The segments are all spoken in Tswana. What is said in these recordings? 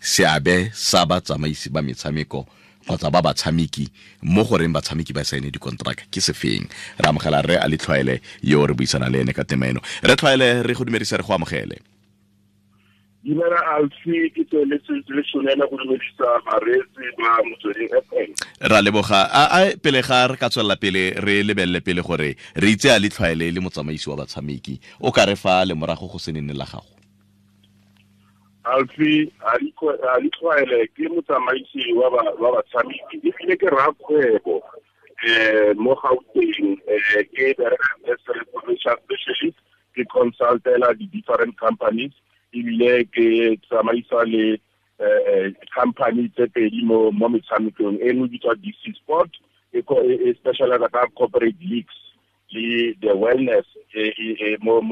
Seabe sa batsamaisi ba metshameko kgotsa ba batshameki mo goreng batshameki ba saene dikontraka ke sefeng. Re amogela re a Letlhwaele yo re buisana le ene ka tema eno. Re Tlhwaele, re go dumedisa, re go amogele. Dumela Alfi, ke tsweletse le tshwanela go dumedisa bareetsi ba Motsweding FM. Ra leboga. A pele ga re ka tswelela pele, re lebelele pele gore re itse a Letlhwaele le motsamaisi wa batshameki, o ka re fa lemorago go se nene la gago? Alfi, a Letlhwaele ke motsamaisi wa batshameki ebile ke rakgwebo mo Gauteng. Ke bereka as a commercial specialist, ke consultela di-different companies ebile ke tsamaisa le company tse pedi mo metshamekong. E nngwe bitswa DC Sport, e specialize ka corporate leagues le the wellness mo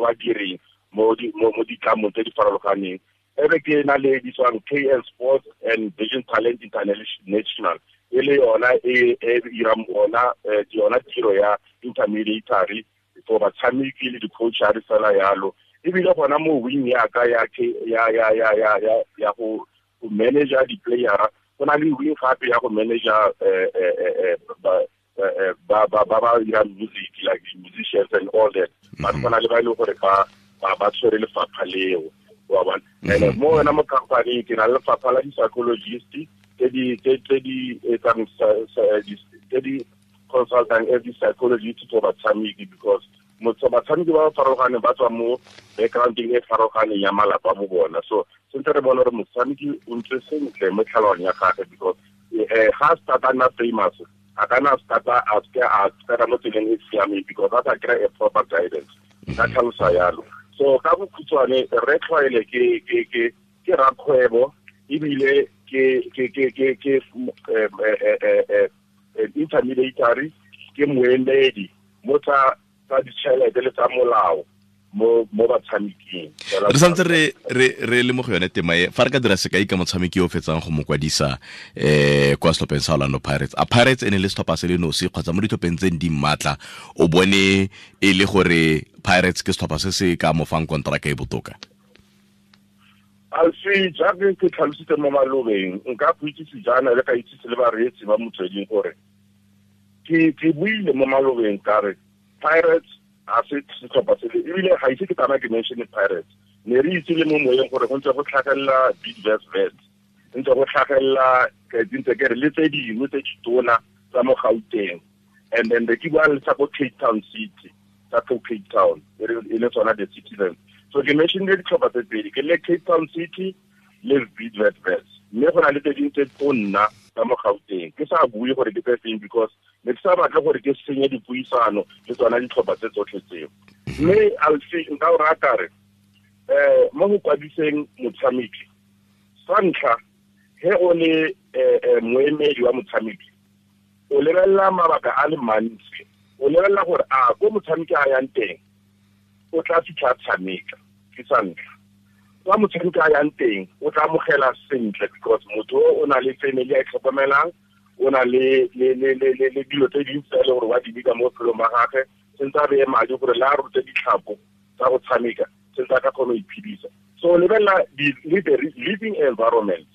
badiring mo ditlamong tse di farologaneng. Ebe ke na le bitswang KL Sports and Vision Talent International, e le yona e irang ona yona tiro ya intermediary for batshameki le di-coachare fela yalo. Ebile gona mo wing ya ka ya ya go manager di-playera, go na le wing gape ya go manager ba ba dirang music, like the musicians and all that. But go na le ba e leng gore ba tshwere lefapha leo, wa bona. And mo yona mo company ke na le lefapha la di-psychologist tse di etsang, tse di consultang as di-psychologist for batshameki, because batshameki ba ba farologaneng ba tswa mo backgroundeng e farologaneng ya malapa mo bona. So sentse re bone gore motshameki o ntse sentle mo tlhaloganyong ya gagwe, because ga a start-a nna famous, a ka nna start-a a seke a tsena mo tseleng e siameng because a sa kry a proper guidance. Ka tlhalosa yalo. So ka bokhutshwane, re Tlhwaele ke rakgwebo ebile ke intermediary, ke moemedi mo tsa ditšhelete le tsa molao mo batshameking. Re santse re le mo go yone tema e, fa re ka dira sekai ka motshameki yo o fetsang go mo kwadisa kwa setlhopheng sa Orlando Pirates. A Pirates e ne le setlhopha se le nosi kgotsa mo ditlhopheng tse di maatla o bone e le gore Pirates ke setlhopha se se ka mo fang kontraka e botoka? Alfi, jaaka ke tlhalositse mo malobeng, nka go itsise jaana le ka itsise le bareetsi ba Motsweding gore ke buile mo malobeng ka re Pirates a se setlhopha se le, ebile ga ise ke tsamaya ke mention Pirates. Ne re itse le mo moyeng gore go ntse go tlhagelela Bidvest Wits, ntse go tlhagelela ke ntse ke re le tse dingwe tse ditona tsa mo Gauteng. And then re ke bua le tsa ko Cape Town City, tsa ko Cape Town e le tsona the Citizens. So ke mentionile ditlhopha tse pedi, ke le Cape Town City le Bidvest Wits. Mme go na le tse dingwe tse tonna tsa mo Gauteng. Ke sa bue gore ke tse feng because ne ke sa batle gore ke senye dipuisano le tsona ditlhopha tse tsotlhe tseo. Mme Alfi, nka o rata re mo go kwadiseng motshameki, sa ntlha he o le moemedi wa motshameki, o lebelela mabaka a le mantsi. O lebelela gore a ko motshameki a yang teng o tla fitlha tshameka, ke sa ntlha. Kwa motshameki a yang teng o tla amogela sentle because motho o na le family a e tlhokomelang, o na le dilo tse dintsi tse e leng gore wa di bika mo bophelong ba gagwe, sentse a beye madi gore le a rute ditlhapo tsa go tshameka, sentse a ka kgona go iphedisa. So o lebelela the living environment,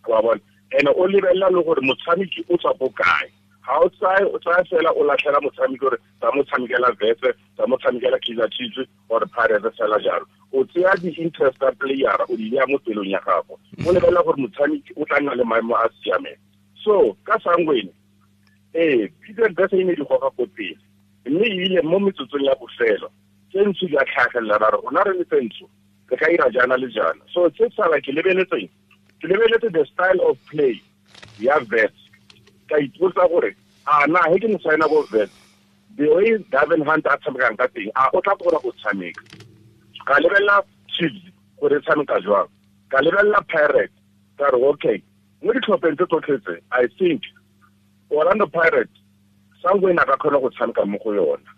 wa bona. And o lebelela le gore motshameki o tswa ko kae. Ga o tsaya fela o latlhela motshameki gore tsa mo tshamekela Wits, tsa mo tshamekela Kaizer Chiefs or Pirates fela jalo. O tseya di-interest tsa playera o di beya mo pelong ya gago, o lebelela gore motshameki o tla nna le maemo a siameng. So ka Sangweni, Bidvest Wits e ne di goga ko pele, mme ebile mo metsotsong ya bofelo tse ntsho di a tlhagelela, ba re rona re le tse ntsho re ka ira jaana le jaana. So tse sala ke lebeletseng, ke lebeletse the style of play ya Wits, ka ipotsa gore a na he ke mo signa ko Wits, the way Gavin Hunt a tshamekang ka teng, a o tla kgona go tshameka. Ka lebelela Chiefs gore e tshameka jwang, ka lebelela Pirates, ka re okay, mo ditlhopheng tse tsotlhe tse, I think Orlando Pirates Sangweni a ka kgona go tshameka mo go yona,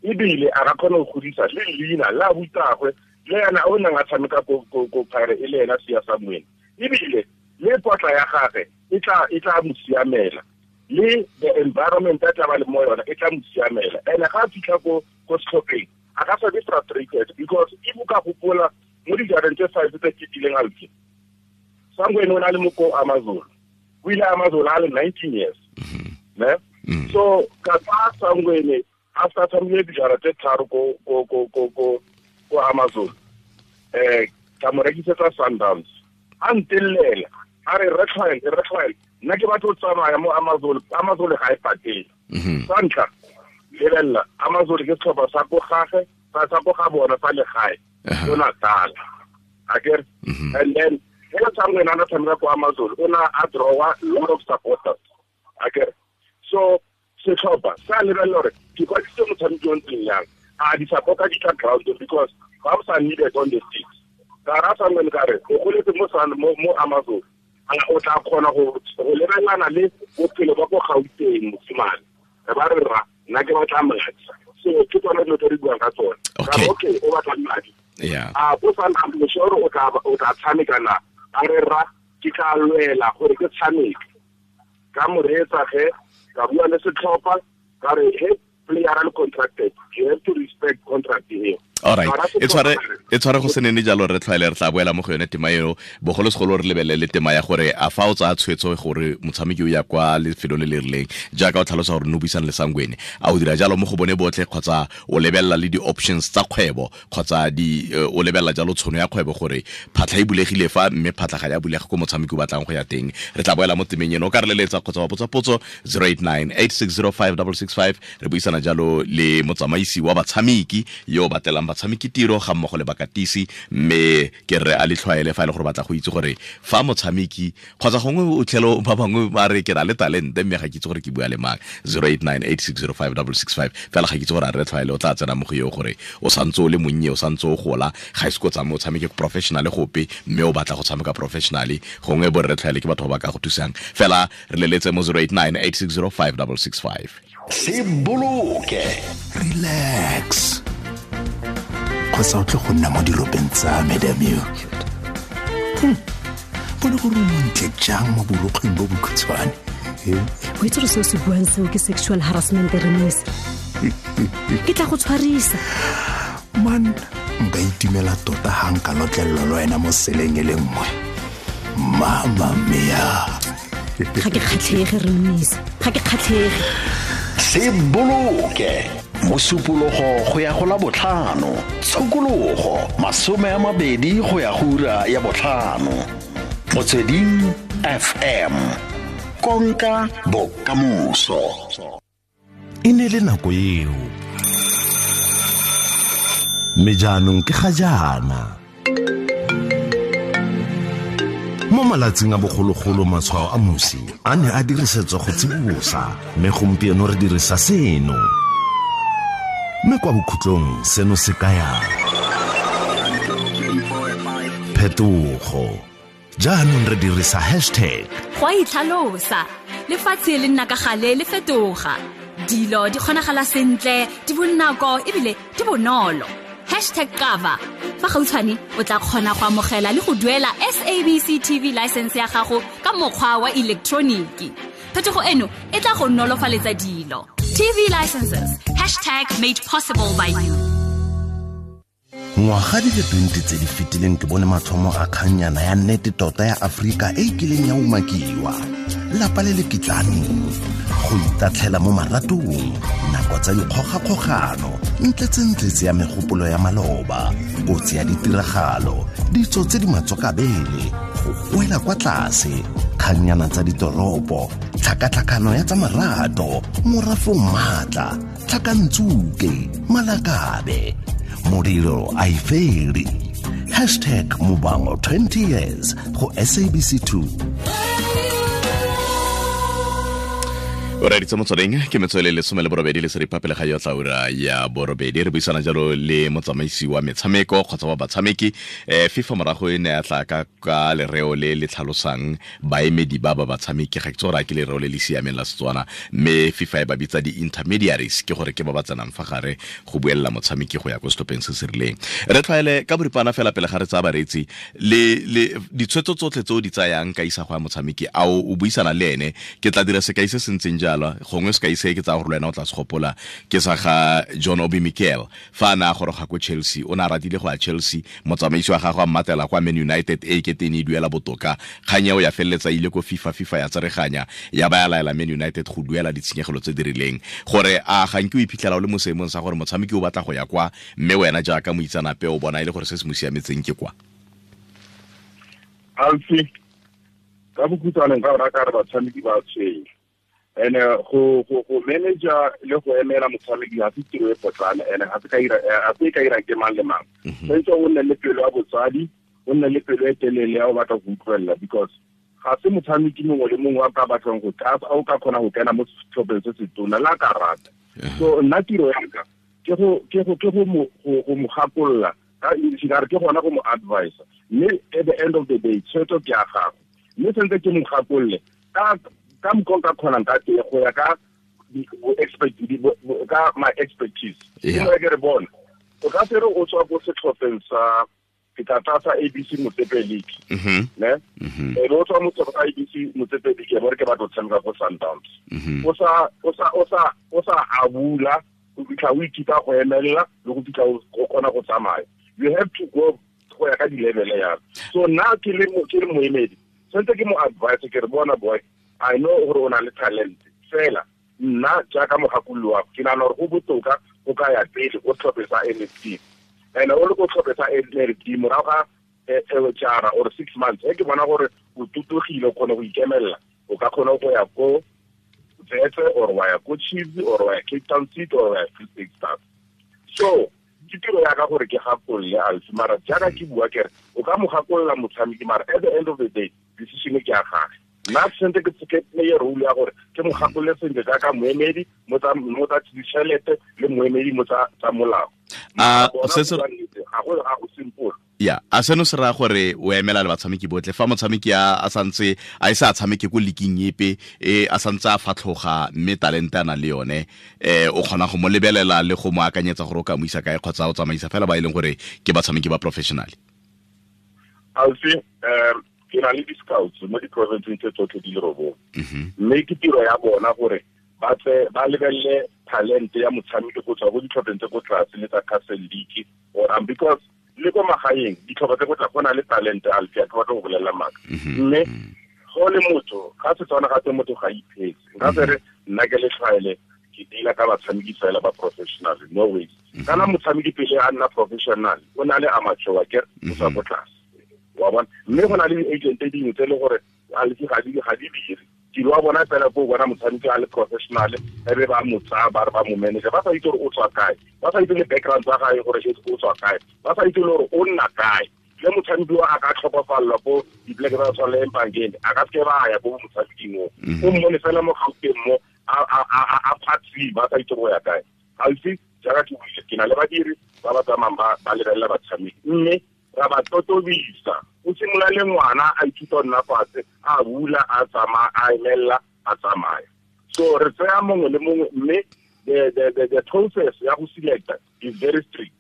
ebile a ka kgona go godisa le leina la butagwe le yena o neng a tshameka ko Pirates e le ena Siya Sangweni, ebile le potla ya gagwe e tla mo siamela, le the environment a tla ba le mo yona e tla mo siamela. And ga a fitlha ko setlhopheng a ka sa be frustrated because if o ka gopola mo dijareng tse 5 tse fetileng Alfi, Sangweni o na le mo ko Amazon. O ile Amazon a le 19 years. Ne? So ka fa Sangweni after tshamile dijara tse tharo ko ko ko ko ko ko Amazon. Ka mo rekisetsa Sundowns. A ntellela a re re nna ke batla go tsamaya mo Amazon, Amazon ga e patele. Sa ntlha lebelela Amazon ke setlhopha sa ko gage, sa ko ga bona sa legae, ko Natal. Akere? And then ge Sangweni a na tshameka ko Amazon, o na a drawa lot of supporters. Akere? So setlhopha sa lebelela gore ke kwadisitse motshameki o ntseng yang, a di-supporter di tla ground because ba sa needed on the seats. Ka ra Sangweni ka re o goletse mo Amazon, o tla kgona go lebelana le bophelo ba ko Gauteng mosimane. Re ba re ra nna ke batla madi. So ke tsone dilo tse re buang ka tsone. Okay, o batla madi. A o sa nna moshoro o tla tshameka na? A re ra ke tla lwela gore ke tshameke. Ka mo reetsa ge, ka bua le setlhopha, ka re he player a le contracted, you have to respect contract here. All right. E tshware go se nene jalo re tlhwaele re tla boela mo go yone tema eo, bogolosegolo re lebelele tema ya gore a fa o tsaya tshwetso gore motshameki o ya kwa lefelong le le rileng, jaaka o tlhalosa gore no buisana le Sangweni, a o dira jalo mo go bone botlhe kgotsa o lebelela le di-options tsa kgwebo kgotsa o lebelela jalo tshono ya kgwebo gore phatlha e bulegile fa mme phatlha ga ya bulega ko motshameki o batlang go ya teng. Re tla boela mo temeng eno, o ka re leletsa kgotsa wa botsa potso 089 8605665. Re buisana jalo le motsamaisi wa batshameki yo o batlelang batshameki tiro ga mmogo le bakatisi, mme ke re a le tlhwaele fa e le gore batla go itse gore fa motshameki kgotsa gongwe o tlhelo ba bangwe ba re ke na le talente mme ga ke itse gore ke bua le mang. 089 8605665. Fela ga ke itse gore a re tlhwaele o tla tsena mo go eo gore o santse o le monnye, o santse o gola, ga ise ko tsamaye o tshameke professional gope mme o batla go tshameka professionally, gongwe bo re tlhwaele ke batho ba ba ka go thusang. Fela re leletse mo 089 8605665. Se boloke, relax, kgotsa o tle go nna mo diropeng tsa me, damn you. Bone gore o montle jang mo borokgweng bo bokhutshwane. O itse gore seo se buang seo ke sexual harassment, Remise. Ke tla go tshwarisa. Man, nka itumela tota ha nka lotlelelwa le wena mo seleng e le nngwe. Mama mia. Ga ke kgatlhege, Remise. Ga ke kgatlhege. Se boloke, mosupologo go ya go la botlhano, tshokologo 20 go ya go ura ya botlhano. Motsweding FM, konka bokamoso. E ne le nako eo, mme jaanong ke ga jaana. Mo malatsing a bogologolo matshwao a mosi a ne a dirisetswa go tsibosa, mme gompieno re dirisa seno. Mme kwa bokhutlong seno se kaya phetogo. Jaanong re dirisa hashtag. Go a itlhalosa, lefatshe le nna ka gale le fetoga. Dilo di kgonagala sentle, di bonako ebile di bonolo. Hashtag cover. Fa gautshwane o tla kgona go amogela le go duela SABC TV license ya gago ka mokgwa wa elektroniki. Phetogo eno e tla go nolofaletsa dilo. TV licenses, hashtag made possible by you. Ngwaga di le 20 tse di fetileng ke bone mathomo a kgannyana ya nnete tota ya Afrika e kileng ya umakiwa. Lapa le le kitlaneng, go itatlhela mo maratong, nako tsa dikgogakgogano, ntletsentletse ya megopolo ya maloba, kotsi ya ditiragalo, ditso tse di matswakabele, go goela kwa tlase, kgannyana tsa ditoropo, tlhakatlhakano ya tsa marato, morafong maatla, tlhakantsuke, malakabe, modiro a e fele. Hashtag Muvhango 20 years go SABC 2. O reditse motsweding ke metswele 18 le seripa pele ga yotla ura ya borobedi. Re buisana jalo le motsamaisi wa metshameko kgotsa wa batshameki. FIFA morago e ne ya tla ka lereo le le tlhalosang baemedi ba ba batshameki, ga ke tsora ke lereo le le siameng la Setswana, mme FIFA e ba bitsa di-intermediaries, ke gore ke ba ba tsenang fa gare go buelela motshameki go ya ko setlhopheng se se rileng. Re tlwaele ka boripana fela pele ga re tsaya bareetsi le ditshwetso tsotlhe tse o di tsayang ka isago ya motshameki, a o buisana le ene? Ke tla dira sekai se se ntseng bojalwa gongwe se ka ise ke tsa gore le wena o tla se gopola ke sa ga John Obi Mikel fa a ne a goroga ko Chelsea o ne a ratile go ya Chelsea motsamaisi wa gagwe a mmatela kwa Man United e kete ne e duela botoka kgang eo ya feleletsa ile ko FIFA ya tsereganya ya ba ya laela Man United go duela ditshenyegelo tse di rileng gore a ga nke o iphitlhela o le mo seemong sa gore motshameki o batla go ya kwa mme wena jaaka moitsanape o bona e le gore se se mo siametseng ke kwa. Alfi ka bokhutshwane nka rata re batshameki ba tshwenya ene go manager le go emela motshameki ga se tiro e potlana ene ga se ka ira ke mang le mang. Tshwanetse o nne le pelo ya botsadi, o nne le pelo e telele ya o batla go utlwelela because ga se motshameki mongwe le mongwe a ka batlang go tla o ka kgona go kena mo setlhopheng se se tona la ka rata. So nna tiro ya ka ke go mo gakolola ka English ka re ke gona go mo advise mme at the end of the day tshwetso ke ya gago mme sentse ke mo gakolole ka mokgwa ka kgonang ka teng go ya ka ka my expertise. Ke ke re bona o ka se re o tswa ko setlhopheng sa ke tla tlatsa ABC Motsepe League ne e o tswa mo setlhopheng sa ABC Motsepe League e bore ke batla go tshameka ko Sundowns o sa abula go fitlha o ithuta go emelela le go fitlha o kgona go tsamaya. You have to go go ya ka di-level ya. So nna ke le moemedi sentse ke mo advice ke re bona boy I know gore o na le talent fela nna jaaka mogakololo wa ke nagana gore go botoka o ka ya pele o tlhophe sa NFD and o le ko tlhophe sa NFD morago ga jara or 6 months e ke bona gore o tutugile o kgone go ikemelela o ka kgona go ya ko Tsetse or wa ya ko Chiefs or wa ya Cape Town City or wa ya Free State Stars. So ke tiro ya ka gore ke gakolole Alfi mara jaaka ke bua ke re o ka mo gakolola motshameki mara at the end of the day decision ke ya gage. Nna sentse ke play role ya gore ke mo gakolole sentle jaaka moemedi mo tsa ditšhelete le moemedi mo tsa molao. Ga go simple. Ya, a seno se raya gore o emela le batshameki botlhe fa motshameki a santse a ise a tshameke ko leaking epe e a santse a fatlhoga mme talente a na le yone o kgona go mo lebelela le go mo akanyetsa gore o ka mo isa kae kgotsa o tsamaisa fela ba e leng gore ke batshameki ba professional. Alfi ke na le di-scouts mo di-provinceng tse tsotlhe di le robong mme ke tiro ya bona gore ba tse ba lebelele talente ya motshameki go tswa go ditlhopheng tse ko tlase le tsa Castle League or because le ko magaeng ditlhopha tse go tla go na le talente Alfi a ke batla go bolelela maaka mme go le motho ga Setswana ga tse motho ga iphetse nka se re nna ke le tlhwaele ke deala ka batshameki fela ba professional no ways. Kana motshameki pele a nna professional o na le amateur ke o tswa ko tlase wa bona mme go na le di-agent tse dingwe tse e le gore Alfi ga di dire tiro wa bona fela ko bona motshameki a le professional e be ba mo tsaya ba re ba mo manager ba sa itse gore o tswa kae ba sa itse le background tsa gae gore o tswa kae ba sa itse le gore o nna kae le motshameki wa a ka tlhokofalelwa ko dipleke tsa tshwana le Empangeni a ka seke ba ya ko motshameking o o mmone fela mo Gauteng mo a phatsima ba sa itse go ya kae. Alfi jaaka ke buile ke na le badiri ba ba tsamayang ba lebelela batshameki mme ra ba totobisa o simolola le ngwana a ithuta nna fatshe a bula a tsamaya a emelela a tsamaya. So re tsaya mongwe le mongwe mme the process ya go selecta is very strict.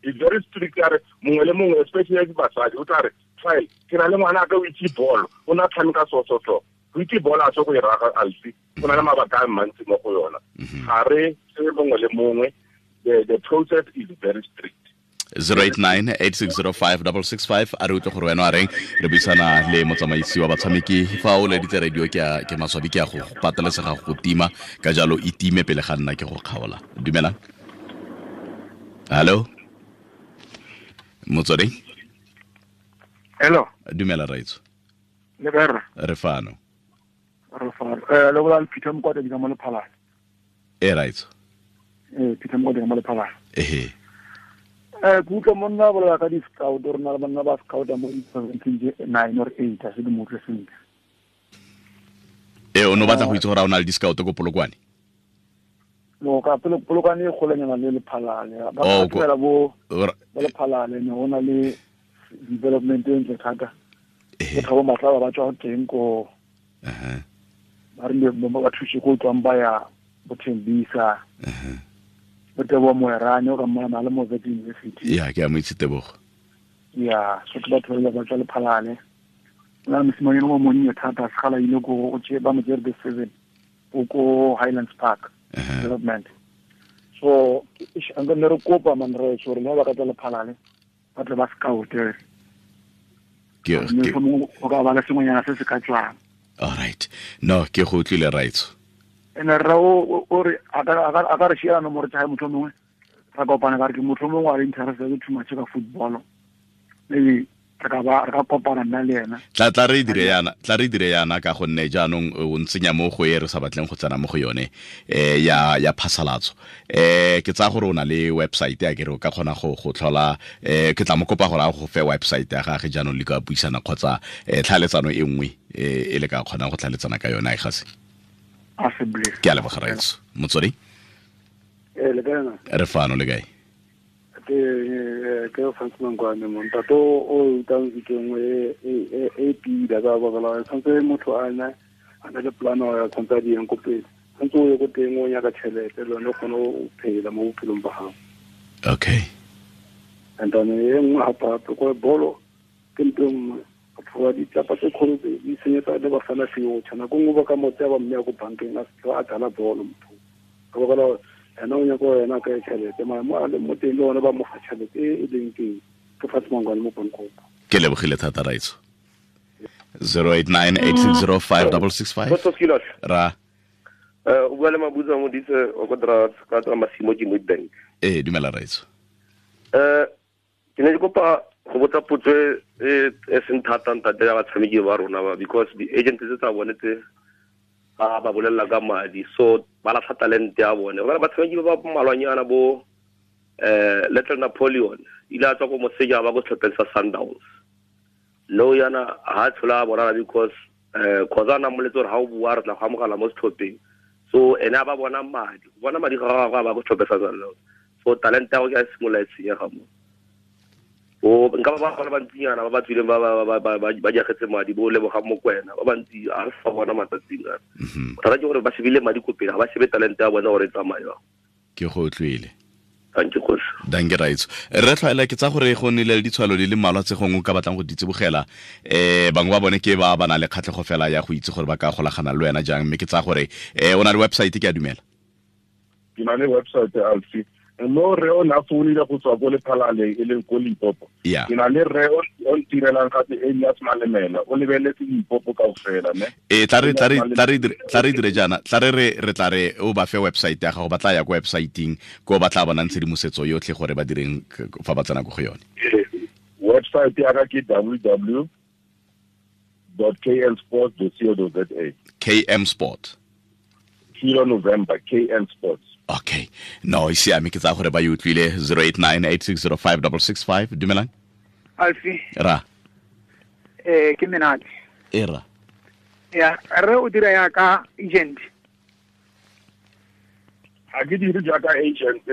It's very strict ya re mongwe le mongwe especially basadi o tla re file ke na le ngwana a ka o itse bolo o na tshameka so go itse bolo a se go e raga Alfi go na le mabaka a mantsi mo go yona ga re tse mongwe le mongwe the process is very strict. 089-8605-665 a re utlwe gore wena a reng re buisana le motsamaisi wa batshameki fa o leditse radio ke maswabi ke a go patelesega go tima ka jalo e time pele ga nna ke go kgaola. Dumelang. Hello motswedi. Hello. Dumela raitso. Le kae rra? Re fano. Re fano. Le bola Peter Mokwatedi ka mo Lephalale. E raitso. Peter Mokwatedi ka mo Lephalale. Ehe. Ke utlwa monna bolela ka di-scout re na le banna ba scouta mo di-provinceng tse 9 or 8 a se di mo utlwe sentle. O ne o batla go itse gore a o na le di-scout ko Polokwane? No, ka Polokwane e golanyana le Lephalale. Ba ka bo Lephalale ne go na le development e ntle thata. Ke Thabo Matlaba ba tswa teng ko ba rile ba thuse ko tswang ba ya bo Thembisa. Tebogo Moerane o ka mmona le mo Wits University. Ya ke a mo itse Tebogo. Ya, so ke batho ba tswa Lephalale. Na mosimane o monnye thata segala ile ko o tse ba mo tsere the 7. Ko Highlands Park development. So nka ne re kopa man re gore le ba ka tla Lephalale ba tle ba scout Ke go ka ba le sengwenyana se se ka tswang. All right, no, ke go utlwile, raitso. Ene rra o re a ka re shiela nomoro tsa hae, motho mongwe ra kopana ka re ke motho mongwe a le interested too much ka football, maybe re ka ba re ka kopana nna le ena. Tla re dire yana, tla re dire yana, ka gonne jaanong o ntsenya mo go e re sa batleng go tsena mo go yone, ya phasalatso. Ke tsaya gore o na le website ya kere o ka kgona go tlhola. Ke tla mo kopa gore a go fe website ya gage, jaanong le ka buisana kgotsa tlhaletsano e nngwe e le ka kgonang go tlhaletsana ka yone a e gase. Ke a leboga, raitso. Motswedi. Eh, le kae na? Re fano, le kae? Ke Francis Mangwane mo ntate o utang ke nngwe e pila ka baka la tshwanetse motho a na le plan ya tshwanetse a di yang ko pele, tshwanetse o ye ko teng o nyaka tšhelete le yone o kgone o phela mo bophelong ba gago. And then e nngwe gape-gape ko bolo ke ntho e nngwe, batho ba ditlapa tse kgolo tse di senyetsa le bafana future. Nako nngwe ba ka mo tsaya ba mme ya ko bankeng a se a dlala bolo motho ka baka la gore ena o nyaka gore ena a kry tšhelete, mara mo a leng mo teng le one ba mo fa tšhelete e e leng teng. Ke Fatshe Mangwane mo Pankgopo. Ke lebogile thata, raitso. 0898605665. Dr. Skilos. Ra. O bua le Mabutsa Modise o ko dra ka tswa Masimo ke Witbank. Ee, dumela, raitso. Ke ne ke kopa go botsa potso e seng thata, ntate, ya batshameki ba rona ba, because di-agent tse tsa bone tse ba bolelela ka madi, so ba latlha talente ya bone. Ba batshameki ba ba mmalwanyana bo Little Napoleon ile a tswa ko moseja ba ko setlhopheng sa Sundowns. No yana ha tshola bonala because khoza na moletse gore ha o bua re tla go amogela mo setlhopheng, so ene a ba bona madi, go bona madi ga gagwe a ba ko setlhopheng sa Sundowns, so talente ya go ke a simolola e senyega mo. O nka ba ba bantsinyana ba ba tswileng ba jagetse madi, bo leboga Mokwena, ba bantsi a re sa bona matsatsing a. Bothata ke gore ba shebile madi ko pele, ga ba shebe talente ya bona gore e tsamaye. Ke go utlwile. Thank you, kgosi. Danke, raitso. Re tlhwaela ke tsa gore go nnile le ditshwalo di le mmalwa tse gongwe o ka batlang go di tsibogela. Bangwe ba bone ke ba ba na le kgatlhego fela ya go itse gore ba ka golagana le wena jang, mme ke tsa gore o na le website, ke a dumela. Ke na le website, Alfi. No, re o na founile go tswa ko Lephalale e leng ko Limpopo. Ke na le re o ntirelang gape Elias Malemela, o lebeletse Limpopo kaofela, ne. E tla re dire jaana, tla re re tla re o ba fe website ya gago, ba tla ya ko websiteng ko ba tla bonang tshedimosetso yotlhe gore ba direng fa ba tsena ko go yone. Website ya ka ke www.knsports.co.za. KM Sport. Kilo November, KN Sports. Okay. No, e siame, ke tsaya gore ba e utlwile. 0898605665. Dumelang. Alfi. Ra. Ke Menate. E ra. Ya, re o dira ya ka agent. Ha ke dire jaaka agent.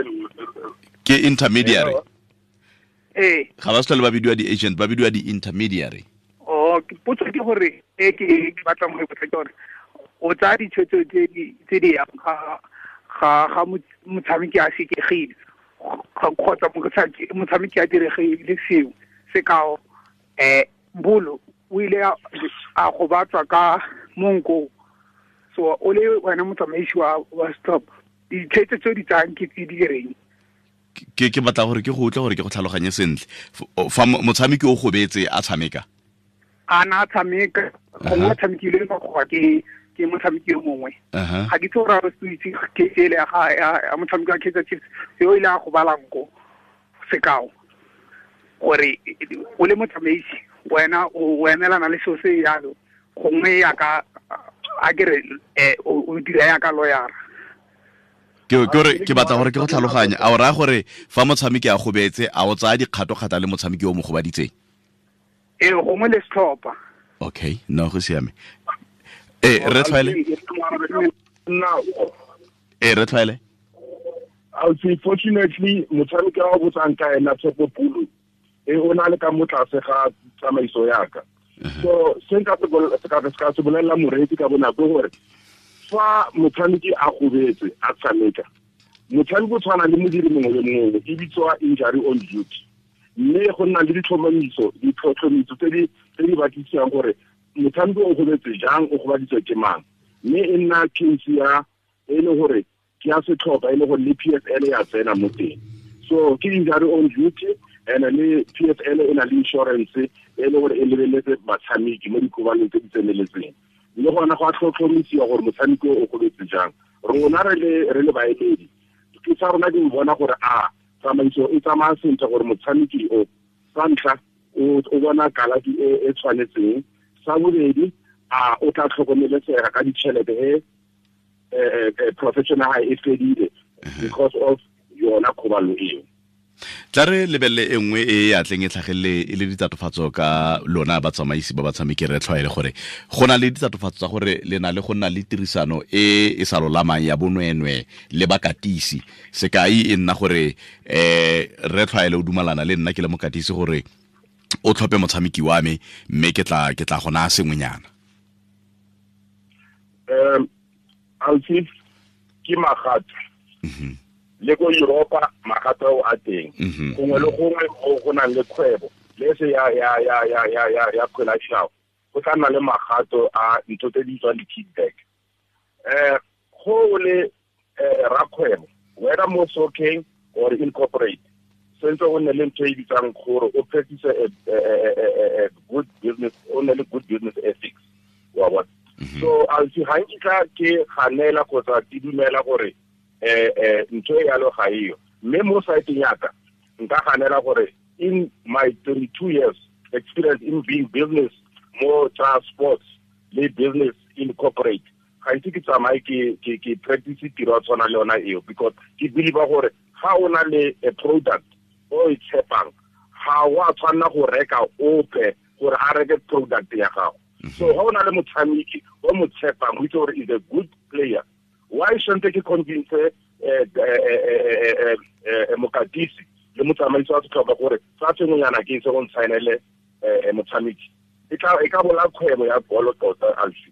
Ke intermediary. Ee. Ga ba se tlhole ba bidiwa di-agent, ba bidiwa di-intermediary. Oh, potso ke gore e ke batlang go e botsa ke gore o tsaya ditshwetso tse di yang ga motshameki a sekegile kgotsa motshameki a diregile sengwe, sekao Mbolo o ile a gobatswa ka monko, so o le wena motsamaisi wa stop, ditshwetso tse di tsayang ke tse di reng? Ke batla gore ke go utlwe gore ke go tlhaloganye sentle. Fa motshameki o gobetse a tshameka, a na tshameka gongwe a tshamekile ka goba ke motshameki yo mongwe, ga ke itse gore a re se itse case ele ya motshameki wa Kaizer Chiefs yo ile a gobala nko, sekao, gore o le motsamaisi wena o emelana le seo se jalo, gongwe yaka a ke re o dira yaka lawyer. Ke gore ke batla gore ke go tlhaloganye, a o raya gore fa motshameki a gobetse a o tsaya dikgato-kgata le motshameki o mo gobaditseng? Ee, gongwe le setlhopha. Okay, no, go siame. Re tlhwaele. Re tlhwaele. Unfortunately, motshameki wa botsang ka ena Tshepo Pulu, o na le ka mo tlase ga tsamaiso ya ka. So se nka se bolelela moreetsi ka bonako gore fa motshameki a gobetse a tshameka, motshameki o tshwana le modiri mongwe le mongwe, e bitswa injury on duty, mme go nna le ditlhotlhomiso tse di batlisang gore motshameki o gobetse jang, o gobaditswe ke mang. Mme e nna case ya e le gore ke ya setlhopha e le gore le PSL ya tsena mo teng. So ke injury on duty, and le PSL e na le insurance e le gore e lebeletse batshameki mo dikobaneng tse di tseneletseng. Le gona go a tlhotlhomisiwa gore motshameki o gobetse jang. Rona re le baemedi, ke sa rona di bona gore a tsamaiso e tsamaya sentle gore motshameki o sa ntlha o bona kalafi e tshwanetseng, sa bobedi a o tla tlhokomelesega ka ditšhelete e professional e fedile because of yona kgobalo eo. Tla re lebelele e nngwe e ya tleng e tlhagelele e le ditatofatso ka lona batsamaisi ba batshameki re tlhwaele gore go na le ditatofatso tsa gore le na le go nna le tirisano e e sa lolamang ya bonwenwe le bakatisi. Sekai e nna gore re tlhwaele o dumalana le nna ke le mokatisi gore o tlhophe motshameki wa me mme ke tla go naya sengwenyana. Alfie ke magato. Le ko Europa magato a teng. Gongwe le gongwe go nang le kgwebo le se ya ya ya ya ya ya ya kgwele ya dinao go tla nna le magato a ntho tse di bitswang di-kickback. Go le rakgwebo whether mo soccer or incorporate sentse o nne le ntho e bitsang gore o practice a good business, o nne le good business ethics wa bona. So Alfie ga nkitla ke ganela kgotsa ke dumela gore ntho e yalo ga eyo, mme mo saeteng ya ka nka ganela gore in my 32 years experience in being business mo tsa sports le business in corporate ga ise ke tsamaye ke practice tiro ya tshwana le yona eo, because ke believe gore ga o na le a product o e tshepang ga wa tshwanela go reka ope gore a reke product ya gago. So ga o na le motshameki o mo tshepang o itse gore is a good player, why shouldn't ke convince mokatisi le motsamaisi wa setlhopha gore sa sengwenyana ke se go ntshaenele motshameki? E ka bola kgwebo ya bolo tota Alfie.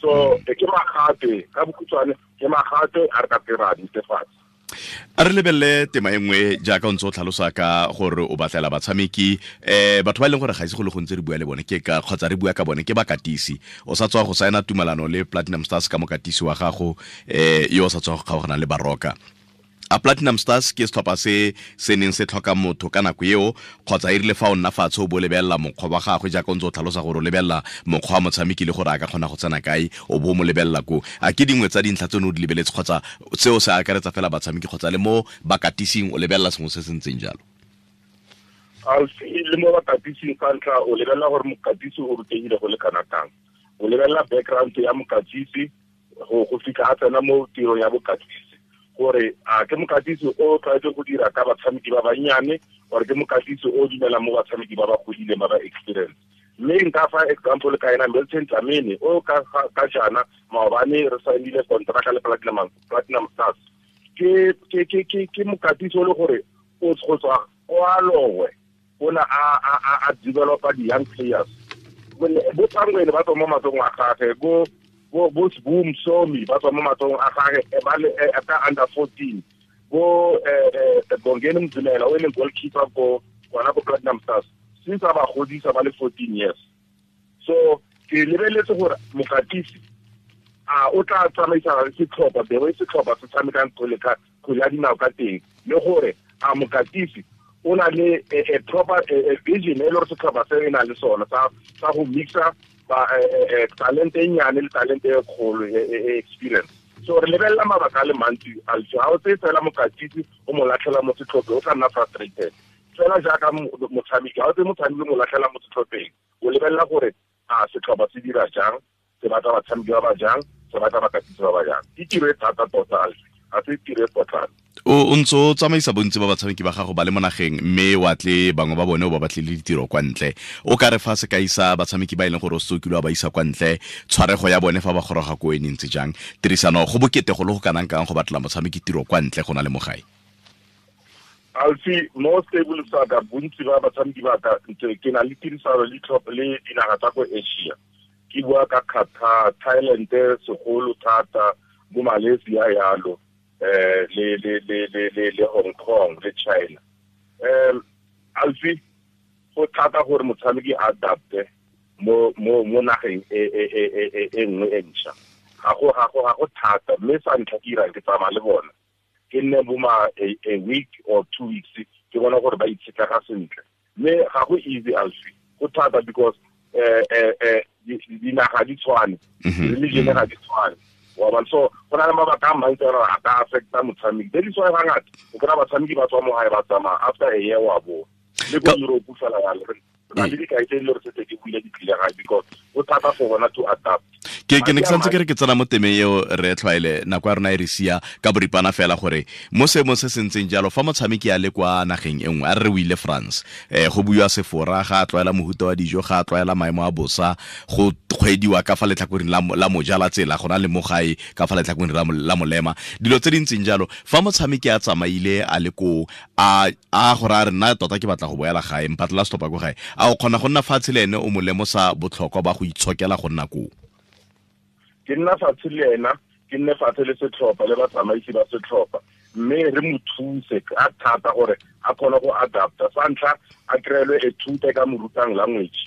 So ke magate ka bokhutshwane, ke magate a re ka pera netefatsa. A re lebelele tema e nngwe jaaka o ntse o tlhalosa ka gore o batlela batshameki batho ba e leng gore ga ise go le gontsi re bua le bone ke ka kgotsa re bua ka bone ke bakatisi. O sa tswa go saena tumalano le Platinum Stars ka mokatisi wa gago yo o sa tswa go kgaogana le Baroka. A Platinum Stars ke setlhopha se se neng se tlhoka motho ka nako eo kgotsa e rile fa o nna fatshe o bo lebelela mokgwa wa gagwe jaaka o ntse o tlhalosa gore o lebelela mokgwa wa motshameki le gore a ka kgona go tsena kae o bo mo lebelela ko. A ke dingwe tsa dintlha tse o ne o di lebeletse kgotsa seo se akaretsa fela batshameki kgotsa le mo bakatising o lebelela sengwe se se ntseng jalo? Alfie, le mo bakatising ka ntlha o lebelela gore mokatisi o rutegile go le kana kang, o lebelela background ya mokatisi go fitlha a tsena mo tirong ya bokatisi, gore a ke mokatisi o tlwaetse go dira ka batshameki ba bannyane or ke mokatisi o dumelang mo batshameki ba ba godileng ba ba experience. Mme nka fa example ka ena Milton Dlamini o ka jaana maobane re saenile kontraka le Platinum Stars. Ke mokatisi o le gore o go tswa kwa Lowe o na a developa di-young players. Bo Tsangwele ba tswa mo matsogong a gagwe, bo Boom Somi ba tswa mo matsogong a gagwe ba le ka under 14, bo Bongeni Mzimela o e leng goalkeeper ko gona ko Platinum Stars since a ba godisa ba le 14 years. So ke lebeletse gore mokatisi a o tla tsamaisa setlhopha the way setlhopha se tshamekang kgwele ya dinao ka teng, le gore a mokatisi o na le a proper vision e le gore setlhopha se e na le sona sa go mixa talente e nnyane le talente e kgolo e experience. So re lebelela mabaka a le mantsi Alfie. Ga o tseye fela mokatisi o mo latlhela mo setlhopheng o tla nna frustrated fela jaaka motshameki. Ga o tseye motshameki o mo latlhela mo setlhopheng, o lebelela gore a setlhopha se dira jang, se batla batshameki ba ba jang, se batla bakatisi ba ba jang. Ke tiro e thata tota Alfie, ga se tiro e potlana. O ntse o tsamaisa bontsi ba batshameki ba gago ba le mo nageng mme wa tle bangwe ba bone o ba batlile ditiro kwa ntle. O ka re fa sekai sa batshameki ba e leng gore o setse o kile wa ba isa kwa ntle, tshwarego ya bone fa ba goroga ko e ntse jang, tirisano go bokete go le go kanang kang go batlela motshameki tiro kwa ntle go na le mo gae? Alfie, mo stable sa ka bontsi ba batshameki ba ka ke na le tirisano le tlhopha le dinaga tsa ko Asia. Ke bua ka Qatar, Thailand segolo thata, bo Malaysia yalo, le Hong Kong le China. Alfie, go thata gore motshameki a adapte mo nageng e nngwe e ntšha. Ga go thata, mme sa ntlha ke irang ke tsamaya le bona. Ke nne bo ma a week or 2 weeks ke bona gore ba itshetlega sentle. Mme ga go easy Alfi, go thata because dinaga di tshwane, religion ga di tshwane. Wa bona, so go na le mabaka a mantsi a gore a ka affecta motshameki. That is why hangata o kry-a batshameki ba tswa mo gae ba tsamaya after a year wa boa. Le ko Europe fela yalo, re na le dikai tse e le gore setse ke buile di tlile gae because go thata for bona to adapt. Ke ne ke santse ke re ke tsena mo temeng eo re tlwaele nako ya rona e re sia ka boripana fela gore mo seemong se se ntseng jalo fa motshameki a le kwa nageng e nngwe, a re re o ile France, go buiwa Sefora, ga a tlwaela mohuta wa dijo, ga a tlwaela maemo a bosa, go kgwediwa ka fa letlhakoreng la moja la tsela go na le mo gae ka fa letlhakoreng la molema, dilo tse di ntseng jalo. Fa motshameki a tsamaile a le koo, a gore a re nna tota ke batla go boela gae, mpatlela setlhopha ko gae, a o kgona go nna fatshe le ene o mo lemosa botlhokwa ba go itshokela go nna koo? Ke nna fatshe le ena, ke nne fatshe le setlhopha le batsamaisi ba setlhopha, mme re mo thuse ka thata gore a kgone go adapta. Sa ntlha a kry-elwe e thuta ka mo rutang language,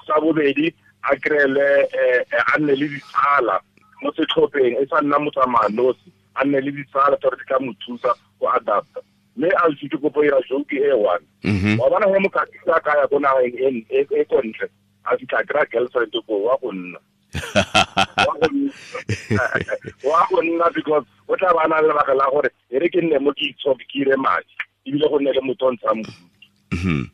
sa bobedi a kry-elwe a nne le ditsala mo setlhopheng, e sa nna motsamaya nosi, a nne le ditsala tsa gore di tla mo thusa go adapta. Mme Alfi ke kopo ira joke e one. Wa bona he mokatisi a ka ya ko nageng e ko ntle, a fitlha kry-a girlfriend ko wa go nna. Wa go nna because o tla ba na le lebaka la gore e re ke nne mo ke itshoke ke ire madi, ebile go nne le motho o ntshang bodutu.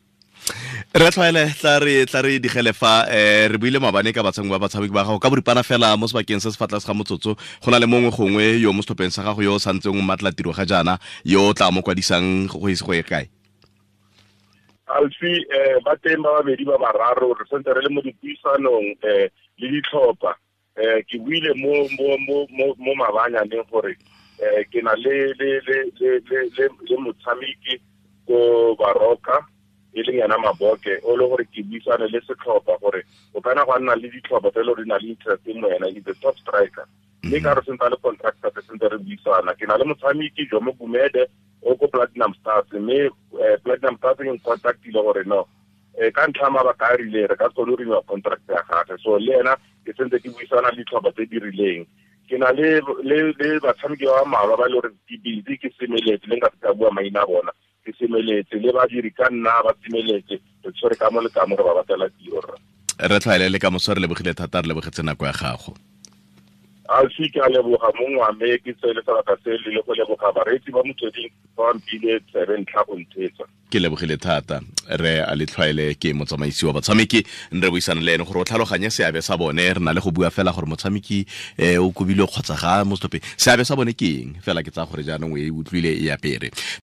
Re tlwaele tla re digele fa re buile maabane ka batshameki ba batshameki ba gago ka boripana fela mo sebakeng se se fa tlase ga motsotso. Go na le mongwe gongwe yo mo setlhopheng sa gago yo o santseng o mmatla tiro ga jaana, yo o tla mo kwadisang go ise go ye kae? Alfi, ba teng ba babedi ba bararo, re santse re le mo dipuisanong le ditlhopha. Ke buile mo mabanyaneng gore ke na le motshameki ko Baroka, e leng yena Maboke, o le gore ke buisane le setlhopha gore o kana go nna le ditlhopha tse e le gore di na le interest mo yena, he's the top striker. Mme ka re sentse a le contractor, re sentse re buisana. Ke na le motshameki Jomo Gumede o ko Platinum Stars, mme Platinum Stars e ncontactile gore no, ka ntlha ya mabaka a rileng re ka se kgone go renewa contract ya gagwe. So le ena ke sentse ke buisana le ditlhopha tse di rileng. Ke na le batshameki ba mmalwa ba e le gore ke busy, ke semeletse, le nka se ka bua maina a bona, ke semeletse le badiri ka nna ba semeletse, re tshwere ka mo le ka mo re ba batlela tiro rra. Re tlwaele le ka moso, re lebogile thata, re lebogetse nako ya gago. Alfi, ke a leboga mongwe wa me, ke tsele sebaka se le go leboga bareetsi ba Motsweding ba mpile tsebe ntlha go ntheetsa. Ke lebogile thata. Re a le tlwaele ke motsamaisi wa batshameki, re buisana le ene gore o tlhaloganye seabe sa bone. Re na le go bua fela gore motshameki o kobilwe kgotsa ga mo setlhopheng, seabe sa bone ke eng fela. Ke tsaya gore jaanong o e utlwile e apere.